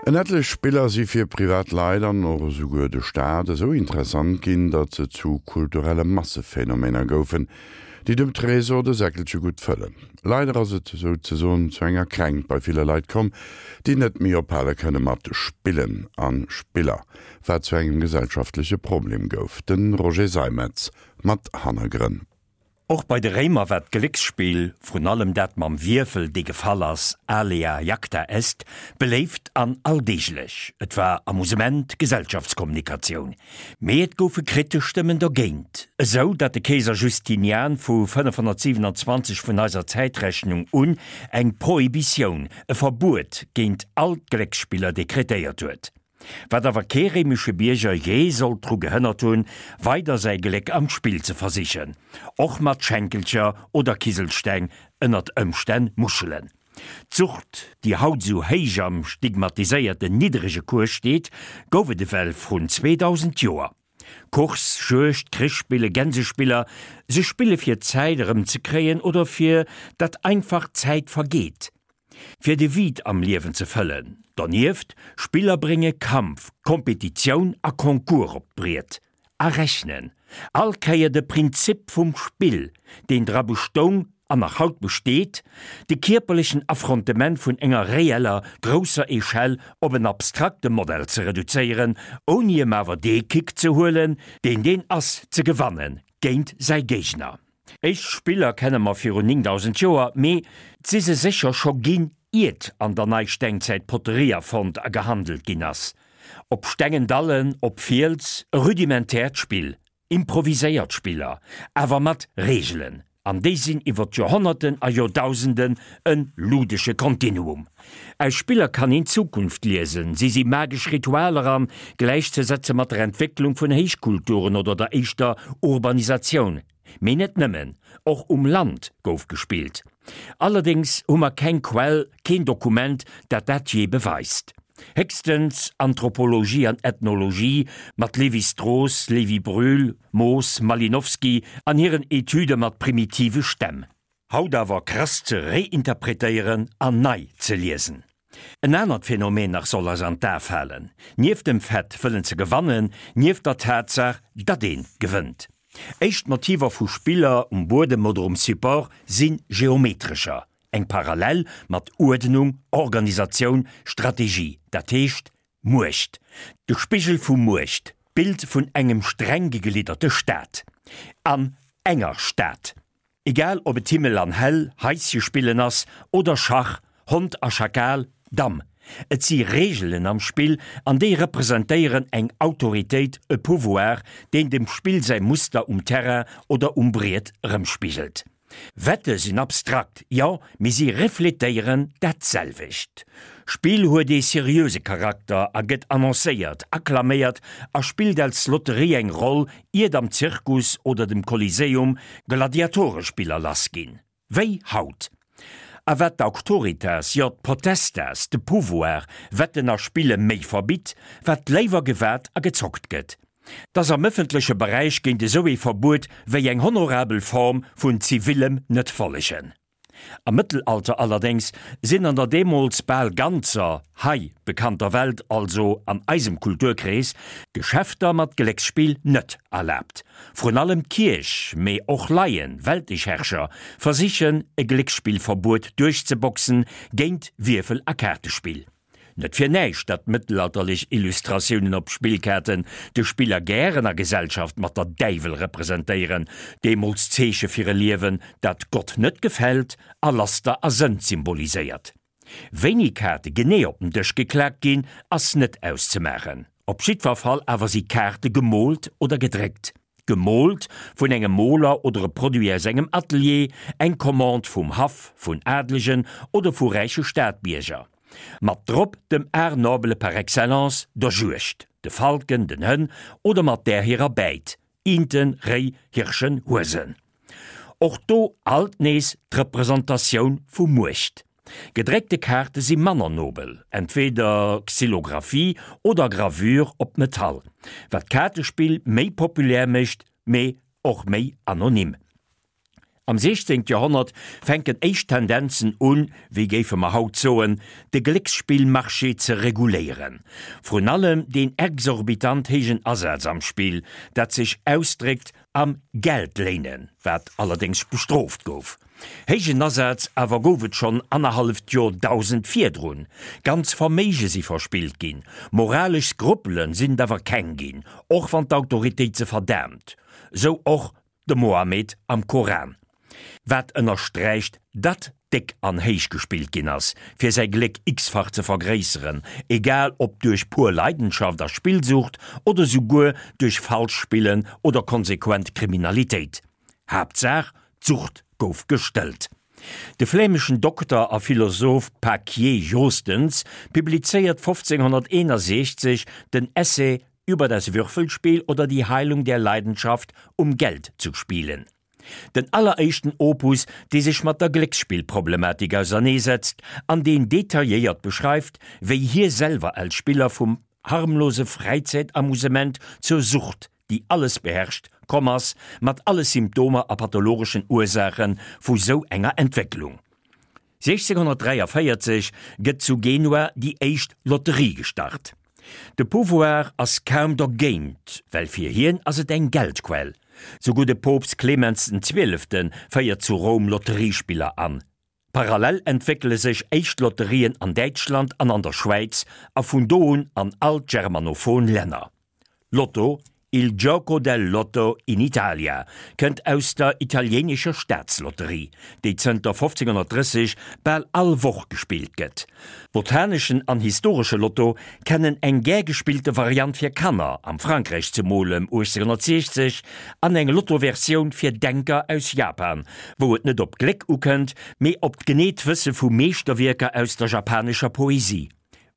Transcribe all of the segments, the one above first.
En etlech Spiller si fir privat Leit an och esouguer de Staat esou interessant ginn, datt se zu kulturelle Massephänomener goufen, déi dem Tresor de Säckelche gutt fëllen. Leider ass et souzesoen zu enger Kränkt bei ville Leit komm, déi net méi ophale kënne mat spillen a Spiller, wat zu engem gesellschaftleche Problem gouf. De Roger Seimetz mat Hannergrënn. Och bei de Réimer war d'Glécksspill, vrun allem dat mam Wierfel, dee gefall ass, alea jacta est, beléift an alldeeglech. Et war Amusement, Gesellschaftskommunikatioun. Mee et goufe kritesch Stëmmen dogéint, esou datt de Keeser Justinian vu 527 vun eiser Zäitrechnung un eng Prohibitioun, e Verbuet géint all d'Glécksspiller dekretéiert huet. Wat awer kee réimesche Bierger jee sollt dru gehënnert hunn, weider säi Gléck am Spill ze versichen, och mat Schenkelcher oder Kiselsteng, ënnert Ëmstänn Muschelen. D'Sucht, déi haut esou héich am stigmatiséierten niddrege Cours steet, gouf et ewell vrun 2000 Joer. Course, Juegd, Krichspille, Gänsespiller, se spille fir d'Zäit erëmzekréien oder fir datt einfach d'Zäit vergeet. Fir de Vide am Liewen ze fëllen. Donieft, Spiller brénge Kampf, Kompetitioun a Concours op d'Briet. A rechnen. All Kéier de Prinzip vum Spill, deen dra bestoung an nach haut besteet, de kierperlechen Affrontement vun enger reeller, grousser Echelle op en abstrakte Modell ze reduzéieren, ouni em awer dee Kick ze huelen, deen deen ass, ze gewanne géint säi Géigner. Éischt Spiller kenne mer virun 9000 Joer, mee 't si se sécher scho ginn, iert an der Neistengzäit d'Poterie erfonnt a gehandelt ginn ass. Op stengen Dallen, op Fiels, e rudimentäert Spill, improviséiert Spiller, awer mat Reegelen, an déi sinn iwwer d'Joerhonnerten a Joerdausenden e ludesche Kontinuum. Aus Spiller kann een d'Zukunft liesen, si si magesch Ritualer an gläichzesetze mat der Entwécklung vun Héichkulturen oder der éischter Urbanisatioun. Mee net nëmmen, och um Land gouf gespillt. Allerdéngs hu mer keng Quell, keen Dokument, dat dat jee beweist. Héchstens Anthropologie an Ethnologie mat Lévi-Strauss, Lévi-Brühl, Moos, Malinowski an hiren Etüde mat primitive Stämm. Haut awer krass ze réinterpretéieren an nei ze liesen. En anert Phänomen nach soll eis an d'A falen, nieft dem Fait wëllen ze gewannen, nieft der Tatsaach, datt ee gewënnt. Éischt Motiver vu Spiller um Buedem oder um Support si geometrescher, eng Parallel mat Uerdnung, Organisatioun, Strategie, dat heescht Muecht, de Spigel vu Muecht, d'Bild vun engem streng geglidderte Staat. An enger Stad. Egal ob et Himmel an Hell, Haische spillen ass oder Schach, Hond a Schakal, Damm. Et si Reegelen am Spill an déi representéieren eng Autoritéit, e Pouvoir, deen dem Spill säi Muster um Terrain oder um Briet erëmspigelt. Wette sinn abstrakt, jo, mee si refletéieren dat selwecht. Spill huet ee seriöse Charakter a gëtt annoncéiert, akklaméiert a spillt als Lotterie eng Roll, iert am Zirkus oder dem Kolliseum Gladiatorespiller lass ginn. Wéi haut. A wat d'Auctoritas, jo d'Potestas, de Pouvoir, Wetten a Spille méi verbitt, wat léiwer gewat a gezockt gëtt. T'ass am ëffentleche Beräich géint esou ee Verbuet wéi eng honorabel Form vun zivillem Net-Follegen. Am Mëttelalter allerdéngs sinn an der deemools bal ganzer hei bekannter Welt, also an eisem Kulturkrees, Geschäfter mat Glécksspill net erlaabt. Vrun allem d'Kierch, mee och Laien, weltlech Herrscher, versichen e Glécksspillverbuet duerchzeboxen géint Wierfel a Kaartespill. Net fir näischt, datt mëttelalterlech Illustratiounen op Spillkaarten de Spiller gären a Gesellschaft mat der Däiwel representéieren, deemools d'Zeeche fir e Liewen, dat Gott net gefält a Laster a Sënd symboliséiert. Wéini Kaarte genee op den Dësch geklaakt ginn, ass net auszemaachen. Op jiddwer Fall awer si Kaarte gemoolt oder gedréckt. Gemoolt vun engem Moler oder e Produit aus engem Atelier, eng Commande vum Haff, vun Adlegen oder vu räiche Stadbierger. Mat drop dem Art noble par excellence, der Juegd, de Falken, den Hënn oder mat där hirer Bäit, Inten, Réi, Hirschen, Huesen. Och do alt nees d'Representatioun vu Muecht. Gedréckte Kaarte si manner nobel, entweeder Xylographie oder Gravure op Metall, wat d'Kaartespill méi populär mécht, mee och méi anonym. Am 16. Joerhonnert fänken éischt Tendenzen un, wéi géife mer haut soen, de Glécksspillmarché ze reguléieren. Vrun allem deen exorbitant héijen Asaz am Spill, dat sech ausdréckt am Geldléinen, wat allerdéngs bestrooft gouf. Héijen Asaz awer gouf et schonn annerhalleft Joerdausend virdrun. Ganz Verméige si verspillt ginn, moralesch Skrupele sinn et awer keng ginn, och wann d'Autoritéit se verdaamt. Sou och De Mohammed am Koran, wat ënnersträicht, datt déck an héich gespillt ginn ass, fir säi Gléck x-fach ze vergréisseren, egal ob duerch pur Leidenschaft a Spillsucht oder souguer duerch Falschspillen oder konsequent Kriminalitéit. Haaptsaach, d'Sucht gouf gestëllt. De flämeschen Dokter a Philosoph Paquier Joostens publizéiert 1561 den Essai Über das Würfelspiel oder die Heilung der Leidenschaft um Geld zu spielen. Den alleréischten Opus, dee sech mat der Glécksspillproblematik auserneesetzt an deen detailléiert beschreift, wéi hie selwer als Spiller vum harmlose Fräizäitamusement zur Sucht, déi alles beherrscht, komm ass, mat alle Symptomer a pathologeschen Ursaache vu sou enger Entwécklung. 1643 gëtt zu Genua déi éischt Lotterie gestart. De Pouvoir ass kaum dergéint, well fir hien ass et eng Geldquell. Souguer de Poopst Clemens den Zwielefte féiert zu Roum Lotteriespiller an. Parallel entwéckele sech éischt Lotterien an Däitschland an an der Schwäiz a vun do un an all d'germanophon Länner. Lotto, Il gioco del lotto in Italia, kënnt aus der italieenescher Staatslotterie, déi zënter 1530 bal all Woch gespillt gëtt. Botaneschen an historesche Lotto kennen eng gär gespillte Variant fir Kanner, am Frankräich zemol ëm 1860, an eng Lotto-Versioun fir Denker aus Japan, wou et net op d'Gléck ukënnt, mee op d'geneet Wësse vu Meeschterwierker aus der japanescher Poesie.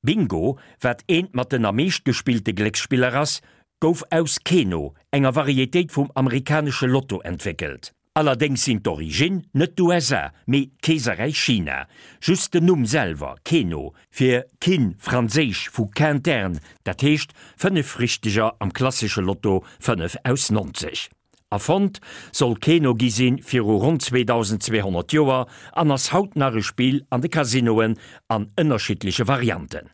Bingo, wat eent mat den am meescht gespillte Glécksspiller ass, gouf aus Keno, enger Varietéit vum amerikanesche Lotto, entwéckelt. Allerdéngs sinn d'Originn net d'USA, mee d'Keeserräich China. Just den Numm selwer, Keno, fir Kin, franséisch vu quintern, dat heescht 5 Richteger am klassesche Lotto 5 aus 90. Erfonnt soll Keno gi sinn viru ronn 2200 Joer an ass haut nach e Spill an de Casinoen an ënnerschiddleche Varianten.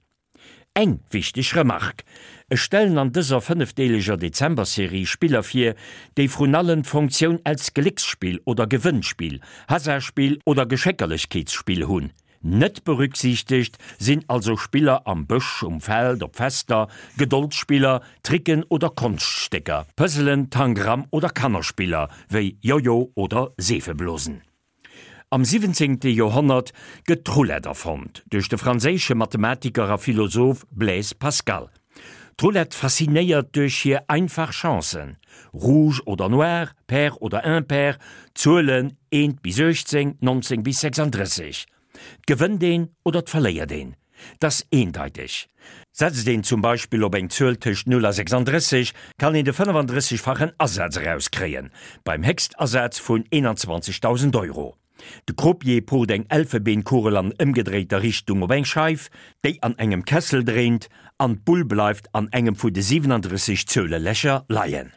Eng wichteg Remark, Ech stellen an dëser fënnefdeeleger Dezember-Serie Spiller vir, déi vrun allem d'Funktioun als Glécksspill oder Gewënnspill, Hasardspill oder Geschéckerlechkeetsspill hunn. Net berücksichtegt sinn also Spiller am Bësch, um Feld, op Fester, Gedoldsspiller, Tricken oder Konschtstécker, Puzzelen, Tangram oder Kannerspiller wéi Jojo oder Seefeblosen. Am 17. Joerhonnert gëtt d'Roulette erfonnt duerch de franséische Mathematiker a Philosoph Blaise Pascal. D'Roulette faszinéiert duerch hir einfach Chancen, Rouge oder Noir, Pair oder Impair, Zuelen 1 bis 18, 19 bis 36. 't gewënnt een oder 't verléiert een. 't ass eendeiteg. Setzt een zum Beispill op eng Zuel tëscht 0 a 36, kann een de 35-fachen Asaz erauskréien, beim Héchstasaz vun 21.000 Euro. De Croupier pucht eng Elfebeenkugel an ëmgedréiter Richtung op eng Scheif, déi an engem Kessel dréint, an d'Bull bleift an engem vu de 37 Zuelelächer leien.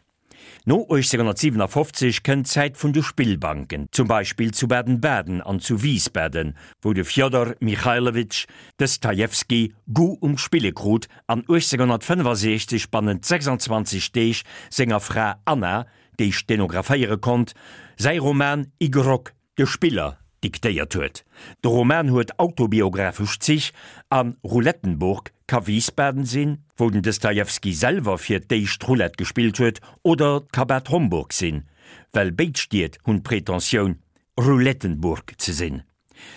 No 1857 kënnt d'Zäit vun de Spillbanken, zum Beispill zu Baden-Baden an zu Wiesbaden, wou de Fjodor Michailowitsch Dostojewski Goût um Spille krut an 1865 bannent 26 Deeg senger Fra Anna, déi stenographéiere konnt, säi Roman Igrok, De Spiller, diktéiert huet. De Roman huet autobiographesch Zich a Roulettenburg ka Wiesbaden sinn, wou den Dostojewski selwer fir d'éischt Roulette gespillt huet, oder 't ka Bad Homburg sinn, well béid Stied hunn d'Pretentioun, Roulettenburg ze sinn.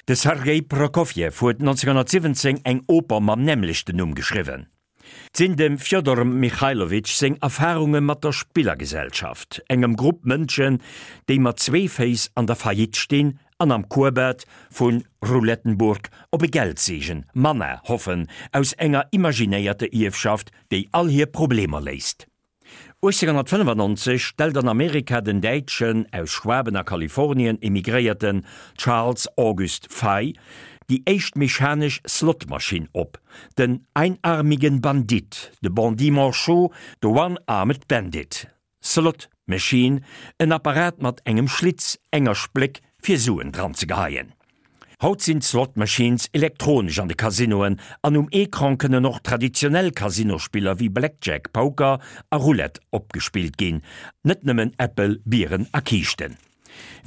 De Sergei Prokofjew huet 1917 eng Oper mam nämmlechten Numm geschriwwen. 't sinn dem Fjodor Michailowitsch seng Erfarunge mat der Spillergesellschaft, engem Grupp Mënschen, déi mat zwee Féiss an der Faillite stinn an am Kurbad vu Roulettenburg op e Geldseegen, Manna, hoffen, aus enger imaginéierter Ierfschaft, déi all hir Problemer léist. 1895 stellt an Amerika den däitschen, aus Schwaben a Kalifornien emigréierten Charles August Fey déi éischt mechanesch Slotmaschinn op, den Einarmigen Bandit, de Bandit Manchot, de One-Armed Bandit. Slot. Machine, en Apparat mat engem Schlitz, enger Spléck, fir Suen dran ze geheien. Haut sinn d'Slot Machines elektronesch an de Casinoen an um Ecran kënnen och traditionell Casinospiller wéi Blackjack, Poker a Roulette opgespillt ginn, net nëmmen Äppel, Bieren a Kiischten.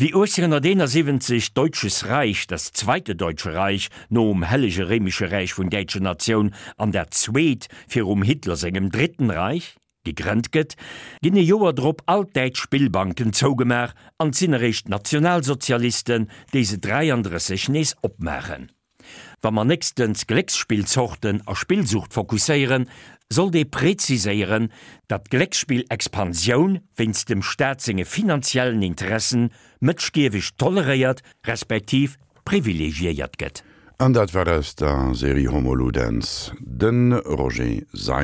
Wéi 1871 d'Deutsches Reich, das Zweite Deutsche Reich, nom Hellege Réimesche Räich vun Däitsche Natioun an dat Zweet virum Hitler sengem Dritten Reich, gegrënnt gëtt, ginn e Joer drop all d'däitsch Spillbanken zougemaach an 't sinn eréischt d'Nationalsozialisten, déi se 33 nees opmaachen. Wa mer nächstens Glécksspillzorten a Spillsucht fokusséieren, sollt ee preziséieren, datt d'Glécksspillexpansioun wéinst dem Staat senge finanziellen Interessen mëtschgieweg toleréiert respektiv privilegiéiert gëtt. An dat war aus der Serie Homo Ludens de Roger Seim.